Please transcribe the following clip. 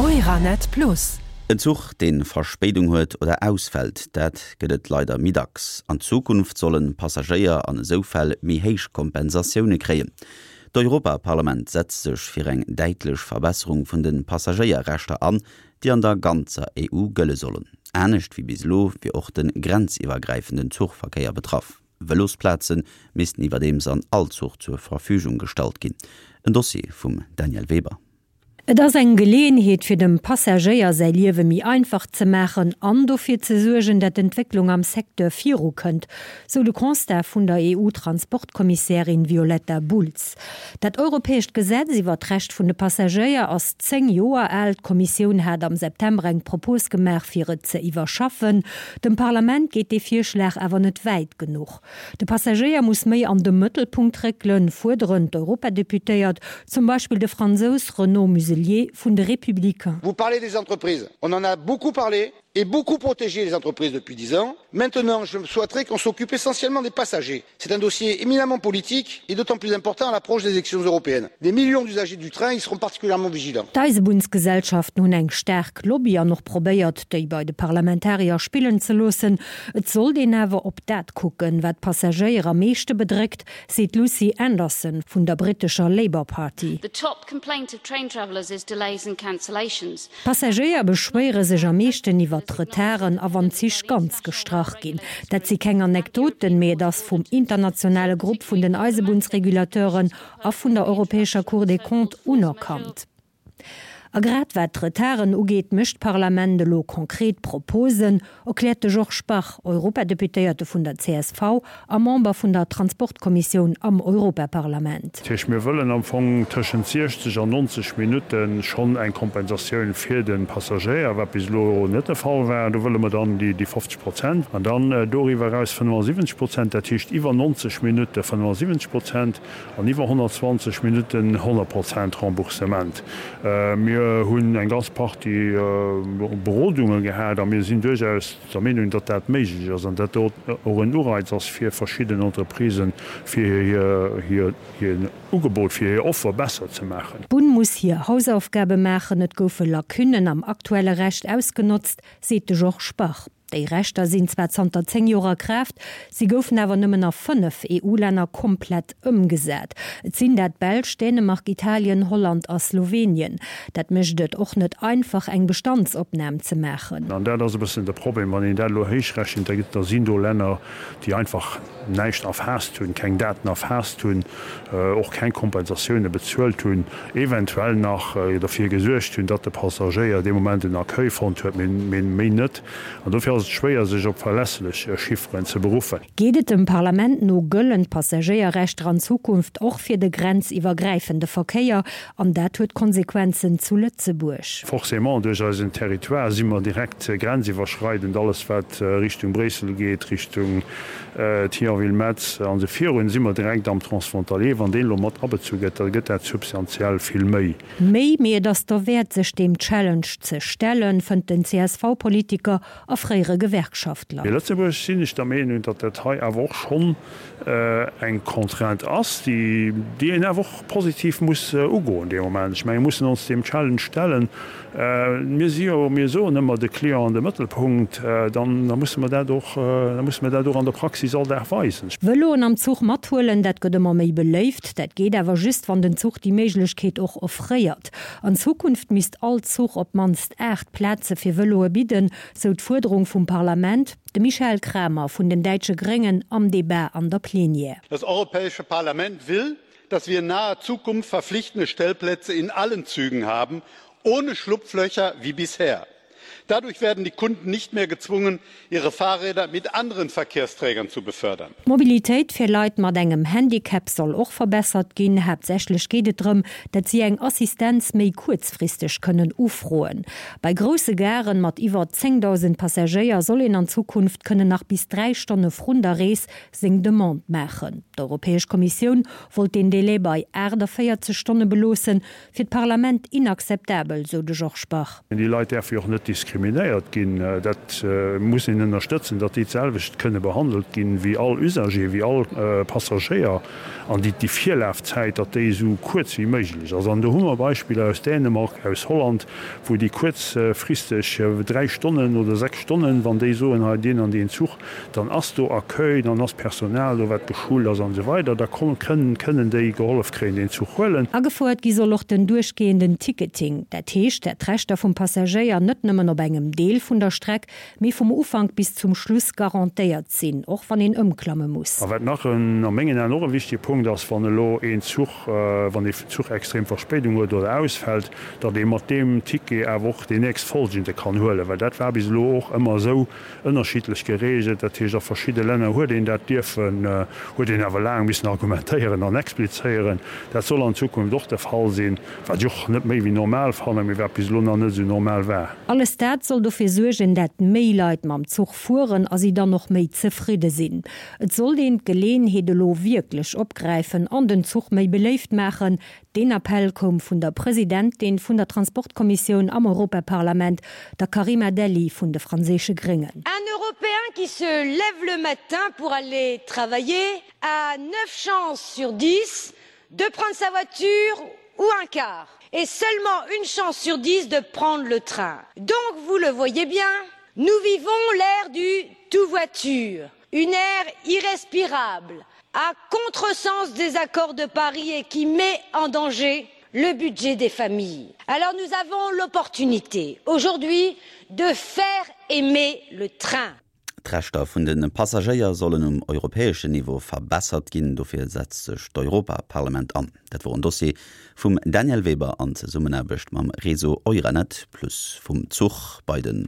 Euranet Plus. En Zuch, dee Verspéidung huet oder ausfält, dat gëtt et leider méi dacks. An Zukunft sollen Passagéier an esou Fäll méi héich Kompensatioune kréien. D'Europaparlament setzt sech fir eng däitlech Verbesserung vun de Passagéierrechter an, déi an der ganzer EU gëlle sollen. Anescht wéi bis elo wier och de grenziwwergräifenden Zuchverkéier betraff. Vëlosplaze missten iwwerdeems an all Zuch zur Verfügung gestallt ginn. En Dossier vum Danièle Weber. Et ass eng Geleeënheet fir dem Passagéier säi Liewe méi einfach ze maachen an dofir ze suergen, dat d'Entwécklung am Secteur viru kënnt, sou de Constat vun der EU-Transportkommissärin Violetta Bulc. Dat europäescht Gesetz iwwer d'Recht vun de Passagéier ass 10 Joer al. D'Kommissioun hat am September eng Propos gemaach fir et ze iwwerschaffen. Dem Parlament geet dee Virschlag awer net wäit genuch. De Passagéier muss méi an de Mëttelpunkt réckelen, fuerderen d'Europadeputéiert, zum Beispill de Fransous Renaud Muselier vun de Républicains. Vous parlez des entreprises, on en a beaucoup parlé et beaucoup protégé les entreprises depuis 10 ans. Maintenant, je souhaiterais qu'on s'occupe essentiellement des passagers. C'est un dossier éminemment politique et d'autant plus important à l'approche des élections européennes. Des millions d'usagers du train y seront particulièrement vigilants. D'Eisebunnsgesellschaften hunn eng staark Lobby an och probéiert, déi bei de Parlamentarier spillen ze loossen. Et sollt een awer op dat kucken, wat d'Passagéier am meeschte bedréckt, seet d'Lucy Anderson vun der brittescher Labour Party. The top complaint of train travellers is delays and cancellations. D'Passagéier beschwéiere sech am meeschten iwwer d'Retarden a wann d'Zich ganz gestrach ginn. Dat si keng Anekdoten, mee et ass vum internationale Grupp vun den Eisebunnsregulateuren a vun der europäescher Cour des Comptes unerkannt. A grad wat d'Retarden ugeet, mécht d'Parlament elo konkret Proposen, erkläert de Georges Bach, Europadeputéierte vun der csv a Member vun der Transportkommissioun am Europaparlament. Dat heescht, mir wëllen am Fong tëschent 60 an 90 Minutte schonn eng Kompensatioun fir de Passagéier, wat bis elo net de Fall war. Do wëlle mer dann déi 50 Prozent an dann doriwwer eraus 75 Prozent, dat heescht iwwer 90 Minutte 75 Prozent. An iwwer 120 Minutten 100 Prozent Remboursement. Mir hunn eng ganz Partie Berodunge gehat a mir sinn duerchaus der Meenung, datt dat méiglech ass an datt dat och en Ureiz ass fir verschidden Entreprisen, fir hir Ugebot, fir hir Offer besser ze maachen. D'Bunn muss hir Hausaufgabe maachen. Et goufe Lacunnen am aktuelle Recht ausgenotzt, seet de Georges Bach. Déi Rechter sinn zwar zanter 10 Joer a Kraaft, si goufen awer nëmmen a 5 EU-Länner komplett ëmgesat. Et sinn dat d'Belsch, Dänemark, Italien, Holland a Slowenien. Dat mécht et och net einfach, eng Bestandsopnam ze maachen. An dat ass e bëssen de Problem, wann een dat elo héichrechent, da gëtt, da sinn do Länner, déi einfach näischt erfaasst hunn, keng Daten erfaasst hunn, och keng Kompensatioune bezuelt hunn, eventuell nach derfir gesuergt hunn, datt de Passagéier dee Moment en Accueil fonnt huet, mee méi net. An dofir ass et schwéier, sech op verlässlech Chifferen ze beruffen. Geet et dem Parlament no, gëllen d'Passagéierrechter an Zukunft och fir de grenziwwergräifende Verkéier. An dat huet Konsequenzen zu Lëtzebuerg. Forcément, duerch eisen Territoire si mer direkt grenziwwerschreidend. Alles wat Richtung Bréissel geet, Richtung Thionville-Metz an esou virun, si mer direkt am Transfrontalier. Wann deen elo mat abezu gëtt, da gëtt dat substantiell vill méi. Méi, mee et ass derwäert sech deem Challenge ze stellen, fënnt den CSV-Politiker a fréiere Gewerkschaftler. Fir Lëtzebuerg sinn ech der Meenung, datt dat hei awer och schonn eng Contrainte ass, déi een awer och positiv muss ugoen dee Moment. Ech menge mir mussen ons deem Challenge stellen. Mir si jo, mir soen ëmmer de Client an de Mëttelpunkt, dann da musse mer dat och, da musse mer dat och an der Praxis all Dag weisen. Vëloen am Zuch mathuelen, dat gëtt ëmmer méi beléift. Dat geet awer just, wann den Zuch déi Méiglechkeet och offréiert. An Zukunft misst all Zuch op d'mannst 8 Plaze fir Vëloe bidden, sou d'Fuerderung vum Parlament. De Michael Cramer vun den däitsche Gréngen am Debat an der Plenière. Das Europäische Parlament will, dass wir in naher Zukunft verpflichtende Stellplätze in allen Zügen haben, ohne Schlupflöcher wie bisher. Dadurch werden die Kunden nicht mehr gezwungen, ihre Fahrräder mit anderen Verkehrsträgern zu befördern. D'Mobilitéit fir Leit mat engem Handicap soll och verbessert ginn. Haaptsächlech geet et drëm, dat si eng Assistenz méi kuerzfristeg kënnen ufroen. Bei grousse Garen mat iwwer 10.000 Passagéier soll een an Zukunft kënnen nach bis 3 Stonne vrun der Rees seng Demande maachen. D'Europäesch Kommissioun wollt deen Delai bei 48 Stonne beloossen, fir d'Parlament inakzeptabel, sou de Georges Bach. Déi Leit däerfe jo och net diskriminéiert ginn. Dat muss een ënnerstëtzen, datt déi d'selwecht kënne behandelt ginn wéi all Usager, wéi all Passagéier. An déi déi Virlafzäit, datt déi esou kuerz wéi méiglech ass. An do hu mer Beispiller aus Dänemark, aus Holland, wou déi kuerzfristeg 3 Stonnen oder 6 Stonnen, wann déi soen, hei deen an deen Zuch, dann ass do Accueil, dann ass Personal do, wat geschult ass an esou weider, da kënnen déi gehollef kréien, deen Zuch huelen. Agefouert gi soll och den duerchgehenden Ticketing. Dat heescht, dat d'Rechter vum Passagéier net nëmmen op engem Deel vun der Streck, mee vum Ufank bis zum Schluss garantéiert sinn, och wann een ëmklamme muss. A wat nach en, a mengen Aen och e wichtige Punkt ass, wann elo een Zuch, wann ee Zuch extrem Verspéidung huet oder ausfält, datt ee mat deem Ticket awer och deen nächstfolgende kann huelen, well dat war bis elo och ëmmer esou, ënnerschiddlech geregelt. Dat heescht, a verschidde Länner huet een dat dierfen, huet een awer laang missen argumentéieren an explizéieren. Dat soll an Zukunft och de Fall sinn, wat ech och net méi wéi normal fannen, mee wat bis elo nach net esou normal war. Alles dat soll dofir suergen, dat méi Leit mam Zuch fueren a si dann och méi zefridde sinn. Et sollt een d'Geleeënheet elo wierklech opgräifen an den Zuch méi beléift maachen, Deen Appell koum vun der Presidentin vun der Transportkommissioun am Europaparlament, der Karima Delli vun de franséische Gréngen. Un Européen qui se lève le matin pour aller travailler a neuf chances sur dix de prendre sa voiture ou un car et seulement une chance sur dix de prendre le train. Donc, vous le voyez bien, nous vivons l'ère du tout voiture, une ère irrespirable, à contresens des accords de Paris et qui met en danger le budget des familles. Alors nous avons l'opportunité aujourd'hui de faire aimer le train. D'Rechter vun de Passagéier sollen um europäeschen Niveau verbessert ginn. Dofir setzt sech d'Europaparlament an. Dat wor en Dossier vum Danièle Weber an Zesummenaarbecht mam Réseau Euranet Plus. Vum Zuch bei de.